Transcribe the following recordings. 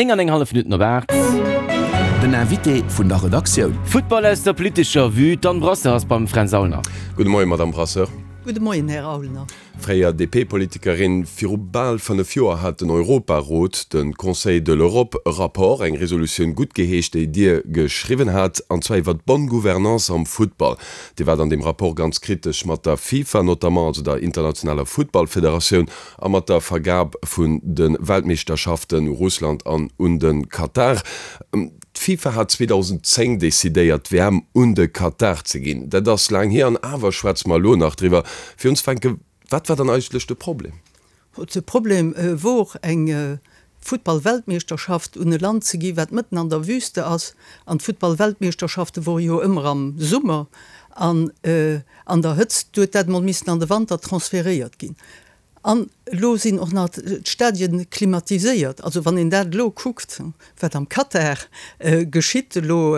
9 an eng hallef Minutten op 8. Den Invité vun der Redaktioun. Futtball aus der politescher Vue, D'Anne Brasseur ass beim Fränz Aulner. Gudde Moien, Madamm Brasseur. Gudde Moien, Här Aulner. Fréier DP-Politikerin, viru bal 5 Joer hat den Europarot, de Conseil de l'Europe, e Rapport, eng Resolutioun guttgeheescht, déi Dir geschriwwen hat, an zwar iwwer d'bonne gouvernance am Futtball. Dir waart an deem Rapport ganz kritesch mat der FIFA notamment, also der internationaler Futtballfederatioun, a mat der Vergab vun de Weltmeeschterschaften u Russland an un de Katar. D'FIFA hat 2010 decidéiert, d'WM un de Katar ze ginn. Dat ass laang hier an awer schwätze mer elo nach driwwer. Fir unzefänken, wat war dann eigentlech de Problem? De Problem wor, eng Futtball-Weltmeeschterschaft un e Land ze gi wat mëtten an der Wüste ass. An d'Futtball-Weltmeeschterschafte wore jo ëmmer am Summer an an der Hëtzt. Du huet dat emol missen an de Wanter transferéiert ginn. An elo sinn och nach d'Stadien klimatiséiert. Also wann een dat elo kuckt, wat am Katar geschitt, elo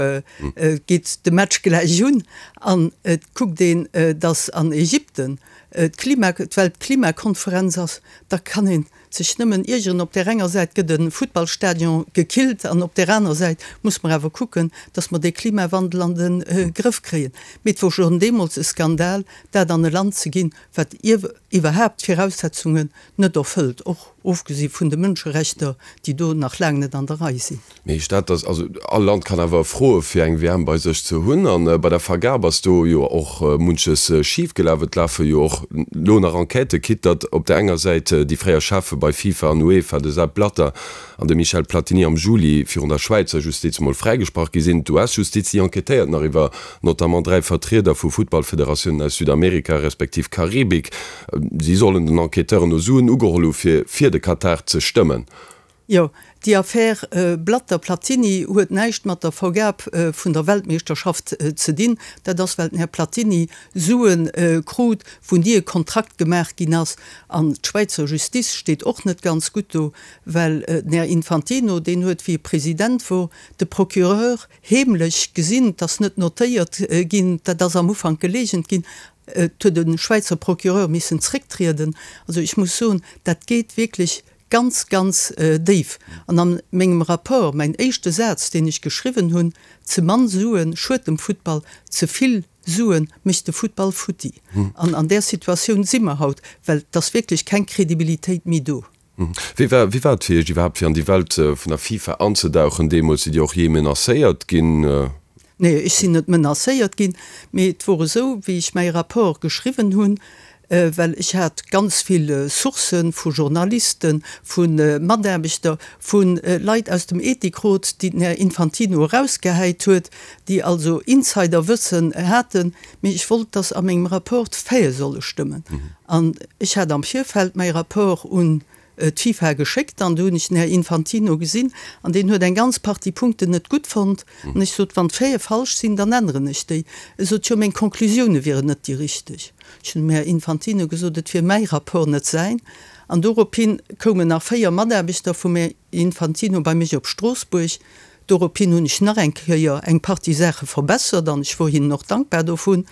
geet de Match gläich un an et kuckt een, datt an Ägypten d'Klima, d'Weltklimakonferenz ass, da kann ee sech nëmmen iergeren. Op där enger Säit gëtt e Futtballstadion gekillt an op där aner Säit muss mer awer kucken, datt mer dee Klimawandel an de Grëff kréien. Mee et wor schonn deemools e Skandal, dat an e Land ze ginn, wat iwwerhaapt d'Viraussetzungen net erfëllt, och ofgesi vun de Mënscherechter, déi do nach laang net an der Rei sinn. Mee heescht dat, dass, also all Land kann awer froe fir eng WM bei sech ze hunn, a bei der Vergab ass do jo och munches schif gelaf, et lafe jo och elo nach Enquêten, quitte datt op der enger Säit déi fréier Cheffe bei FIFA an UEFA, de Sepp Blatter an de Michel Platini am Juli virun der Schwäizer Justiz mol fräigesprach gi sinn. D'US-Justiz, déi enquêtéiert nach iwwer notamment 3 Vertrieder vu Futtballfederatiounen aus Südamerika respektiv Karibik. Si sollen den Enquêteuren no Suen ugeholl hu fir fir de Katar ze stëmmen. Jo, déi Affär Blatter-Platini huet näischt mat der Vergab vun der Weltmeeschterschaft ze dinn. Dat ass well den Här Platini Sue krut, wou ni e Kontrakt gemaach ginn ass. An d'Schwäizer Justice steet och net ganz gutt do, well den Här Infantino, deen huet wéi e President wor, de Procureur heemlech gesinn, 't ass net notéiert ginn, dat ass am Ufank geleegent ginn, et huet e Schwäizer Procureur missen zrécktrieden. Also ech muss soen, dat geet wierklech ganz, ganz déif. An a mengem Rapport, mäin éischte Saz, deen ech geschriwwen hunn, Ze mann Sue schued dem Futtball, ze vill Sue mécht de Futtball futti. An an där Situatioun si mer haut, well et ass wierklech keng Kredibilitéit méi do. Wéi war wéi war et fir Iech iwwerhaapt fir an déi Welt vun der FIFA anzedauchen deemools? Sidd Dir och jee menacéiert ginn? Nee, ech sinn net menacéiert ginn, mee et wor esou, wéi ech mäi Rapport geschriwwen hunn, well ech hat ganz vill Sourcë vu Journalisten, vu Mataarbechter, vu Leit aus dem Ethikrot, déi den Här Infantino erausgehäit huet, déi also Insiderwëssen haten, mee ech wollt, dass a mengem Rapport d'Faite solle stëmmen. An ech hat am Virfeld mäi Rapport un d'FIFA geschéckt an do hunn ech den Här Infantino gesinn an deen huet eng ganz Partie Punkten net gutt fonnt. An ech sot, wann d'Faite falsch sinn, dann änneren ech déi. E sot, jo, meng Conclusioune wieren net déi richteg. Ech hunn dem Här Infantino gesot, et wier mäi Rapport, net säin. An dorophin koumen nach 4 Mataarbechter vum Här Infantino bei mech op Stroossbuerg. Dorophin hunn ech nach eng Kéier eng Partie Saache verbessert an ech wor hinnen och dankbar dovun.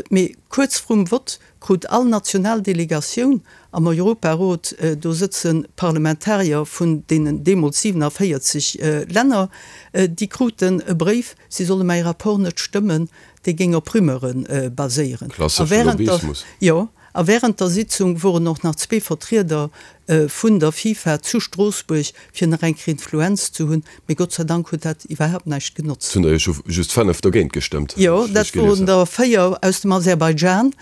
Mee kuerz vrum Vott krut all national Delegatioun am Europarot, do sëtze Parlamentarier vun deenen deemools 47 Länner, déi kruten e Bréif, si solle mäi Rapport net stëmmen, dee géing op Rumeure baséieren. Klassesche Lobbyismus. Jo. A während der Sitzung woren och nach zwee Vertrieder vun der FIFA zu Stroossbuerg, fir nach eng Kéier Influenz ze hunn. Mee Gott sei Dank huet dat iwwerhaapt näischt genotzt. Et hunn der jo just 5 dogéint gestëmmt, Jo, dat woren der 4 aus dem Aserbaidschan.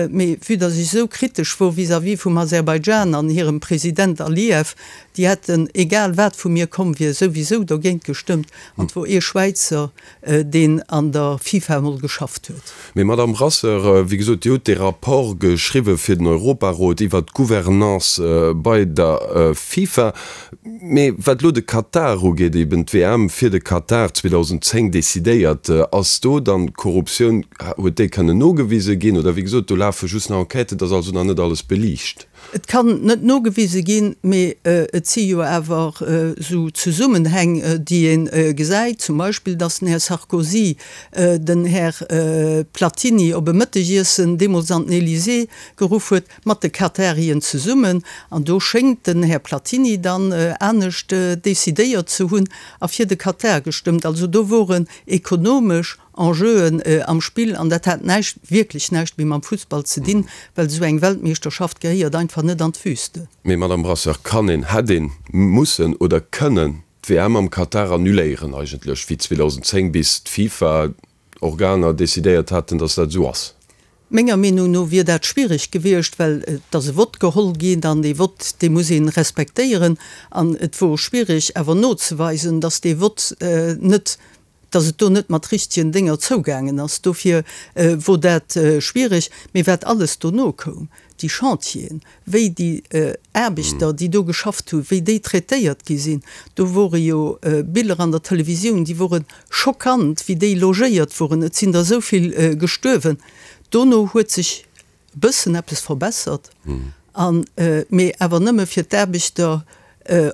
Mee vue dass ech esou kritesch wor vis-à-vis vum Aserbaidschan an hirem President Aliyev, déi hätten, egal wat vu mir komm wier, souwisou dogéint gestëmmt. An et wor ee Schwäizer, deen an der FIFA emol geschafft huet. Mee Madamm Brasseur, wéi gesot, Dir hutt dee Rapport geschriwwe fir den Europarot iwwert d'Gouvernance bei der FIFA. Mee wat elo de Katar ugeet, eben d'WM fir de Katar 2010 decidéiert, ass do dann d'Korruptioun, huet déi kënnen nogewise ginn? Oder wéi gesot, do lafe just nach Enquêten, et ass also nach net alles beliicht. Et kann net nogewise ginn, mee et si jo awer esou Zesummenhäng, déi ee gesäit, zum Beispill, datt den Här Sarkozy den Här Platini op e Mëttegiessen deemools an den Elysée geruff huet, mat de Katarien zesummen. An do schéngt den Här Platini dann anescht decidéiert ze hunn a fir de Katar gestëmmt. Also do woren ekonomesch Enjeuen am Spill an dat hat näischt, wierklech näischt méi mam Fussball ze dinn, well esou eng Weltmeeschterschaft gehéiert einfach net an d'Wüste. Mee Madame Brasseur, kann een, hätt een mussen oder kënnen d'WM am Katar annuléieren eigentlech, wéi 2010 bis d'FIFA Organer decidéiert haten, datt dat esou ass? Menger Meenung no wier dat schwierig gewiescht, well et ass e Vott geholl ginn an dee Vott, dee muss ee respektéieren. An et wor schwierig awer nozeweisen, datt dee Vott net, datt et do net mat richtegen Dénger zougaangen ass. Dofir wor dat schwierig. Mee wat alles dono koum, déi Chantieren, wéi déi Aarbechter, déi do geschafft hunn, wéi déi traitéiert gi sinn, do wore jo Biller an der Televisioun, déi wore schockant, wéi déi logéiert woren, et sinn der esou vill gestuerwen. Dono huet sech e bëssen eppes verbessert, an, mee awer nëmme fir d'Aarbechter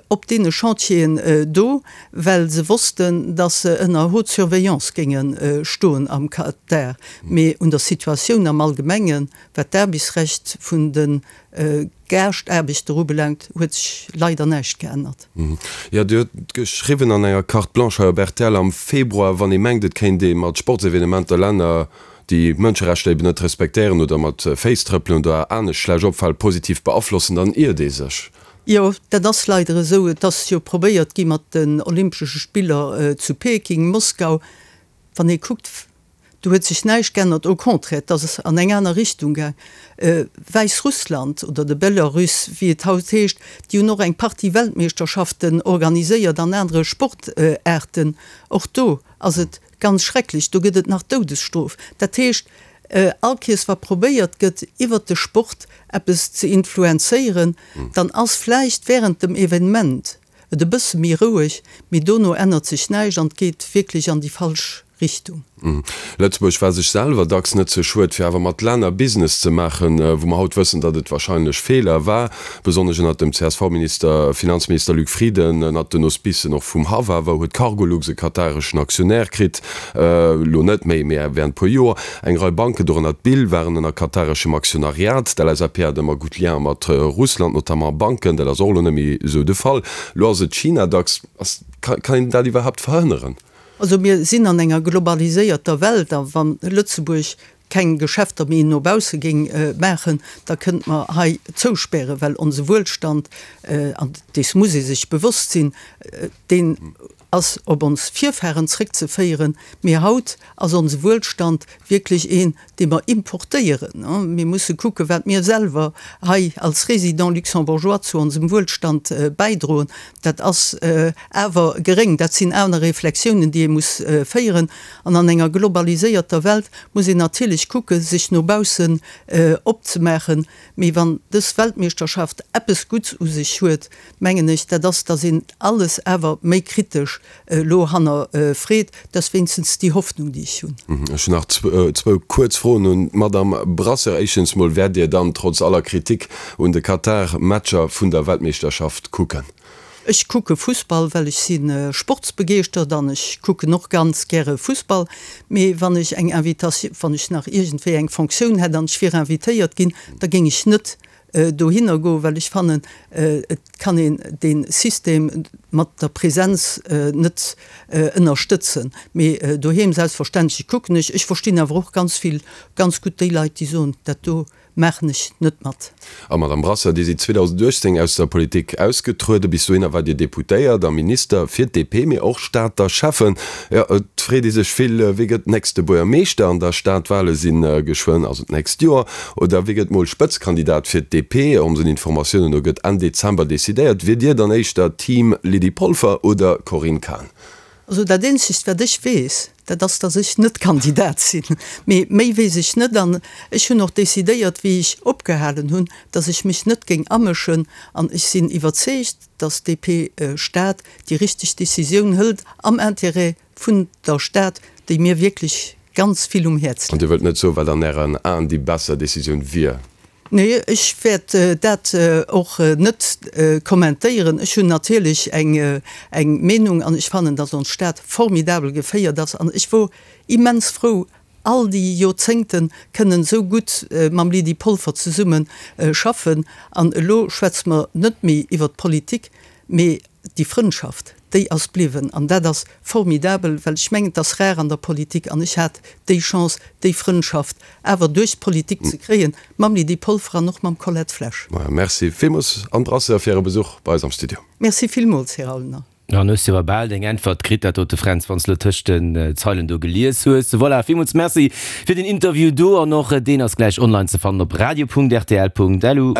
op deene Chantieren do, well se wossten, datt se ënner haute surveillance géinge stoen am Katar. Mee un der Situatioun am Allgemengen, wat d'Aarbechtsrecht vun de Gaascht-Aarbechter ubelaangt, huet sech leider näischt geännert. Jo, Dir hutt geschriwwen an enger Carte blanche hei op rtl am Februar, wann ee mengt, et kéint ee mat Sportsevenementer Länner, déi d'Mënscherechter eben net respektéieren oder mat Féiss trëppelen oder anescht schlecht opfalen, positiv beaflossen, dann iert ee sech. Jo, dat ass leider esou. Et ass jo probéiert gi mat den Olympesche Spiller zu Peking, Moskau. Wann ee kuckt, do huet sech näischt geännert, au contraire, et ass an eng aner Richtung gaang. Wäissrussland oder de Belarus, wéi et haut heescht, déi hunn och eng Partie Weltmeeschterschaften organiséiert an anere Sportaarten. Och do ass et Ganz schrecklech, do gëtt et nach d'Doudesstrof. Dat heescht, all Kees wa probéiert gëtt iwwert de Sport eppes ze influenzéieren, dann ass vläicht während dem Evenement et e bësse méi roueg, mee dono ännert sech näischt an et geet wierklech an déi falsch Richtung. Lëtzebuerg war sech selwer dacks net ze schued, fir awer mat Länner Business ze maachen, wou mer haut wëssen, datt et wahrscheinlech Feeler war, besonnesch ënnert dem CSV-Minister, Finanzminister Luc Frieden, ënnert den Auspicen och vum Haff awer, huet Cargolux e katareschen Aktionär kritt, elo net méi, mee während puer Joer. Eng Rei Banken, dorënner d'BIL, waren ënner katareschem Aktionariat. D'LSAP hat ëmmer gutt Lienen mat Russland, notamment a Banken, dat ass och elo net méi esou de Fall. Elo ass et China dacks. Ass, kann een dat iwwerhaapt verhënneren? Also mir sinn an enger globaliséierter Welt a wa Lëtzebuerg keng Geschäfter méi no bausse géing maachen, da kënnte mer hei zouspären, well onse Wuelstand, an dees muss ee sech bewosst sinn, deen ass op ons Virfahren zréckzeféieren, mee haut ass onse Wuelstand wierklech een, dee mer importéieren. Mir musse kucken, wat mir selwer hei als Résidents luxembourgeois zu onsem Wuelstand bäidroen. Dat ass awer geréng. Dat sinn aner Reflexiounen, déi ee muss féieren. An an enger globaliséierter Welt muss een natierlech kucken, sech no baussen opzemaachen. Mee wann dës Weltmeeschterschaft eppes Gutts u sech huet, mengen ech, dat ass, dass een alles awer méi kritesch elo hannerfreet. Dat ass wéinstens déi Hoffnung, déi ech hunn. Ech hunn nach zwou kuerz Froen un d'Madamm Brasseur. Éischtens mol, Wäert Dir dann trotz aller Kritik un de Katar Matcher vun der Weltmeeschterschaft kucken? Ech kucke Fussball, well ech si sportsbegeeschtert an ech kucken och ganz gäre Fussball. Mee wann ech eng Invitatioun, wann ech nach iergendwéi eng Fonctioun hätt an ech wier invitéiert ginn, da géing ech net dohinner goen, well ech fannen, et kann een dee System mat der Präsenz net ënnerstëtzen. Mee doheem selbstverständlech kucken ech. Ech verstinn awer och ganz vill, ganz gutt déi Leit, déi soen, dat do maachen ech net mat. A Madame Brasseur, Dir sidd 2018 aus der Politik ausgetrueden. Bis dohinner waart Dir Deputéiert a Minister fir d'DP, mee och Stater Schäffen. Jo, et freet ee sech vill, Wie gëtt nächste Buergermeeschter an der Stad? D'Wale si geschwënn, also d'nächst Joer. Oder wie gëtt mol Spëtzkandidat fir d'DP? Onsen Informatiounen no gëtt Enn Dezember decidéiert. Wier Dir dann éischter Team Lydie Polfer oder Corinne Cahen? Also dat eenzegt wat ech weess, dat ass, datt ech net Kandidat sinn. Mee méi weess ech net. An ech hunn och decidéiert, wéi ech opgehalen hunn, datt ech mech net géing amëschen. An ech sinn iwwerzeegt, datt d'DP Stad déi richteg Decisioun hëlt am Intérêt vun der Stad, déi mir wierklech ganz vill um Häerz An Dir wëllt net soen, wat an Ären Aen déi besser Decisioun wier? Nee, ech wäert dat och net kommentéieren. Ech hunn natierlech eng Meenung an ech fannen, datt ons Stad formidabel geféiert ass an ech wor immens frou, all déi Joerzéngte kënnen esou gutt mam Lydie Polfer zesumme schaffen. An elo schwätze mer net méi iwwert d'Politik, mee déi Frëndschaft, déi ass bliwwen. An dat ass formidabel, well ech mengen, et ass rar an der Politik, an ech hat déi Chance, déi Frëndschaft awer duerch d'Politik ze kréien, mam Lydie Polfer an och mam Colette Flesch. Merci villmools, Anne Brasseur, fir Äre Besuch bei eis am Studio. Merci villmools, Här Aulner. Dann hues de awer bal deng Äntwert kritt, dat dote Fränz, wann s de lo tëscht den Zeilen do gelies hues. Voilà, villmools Merci fir den Interview do an och deen ass gläich online ze fannen op radio.rtl.lu.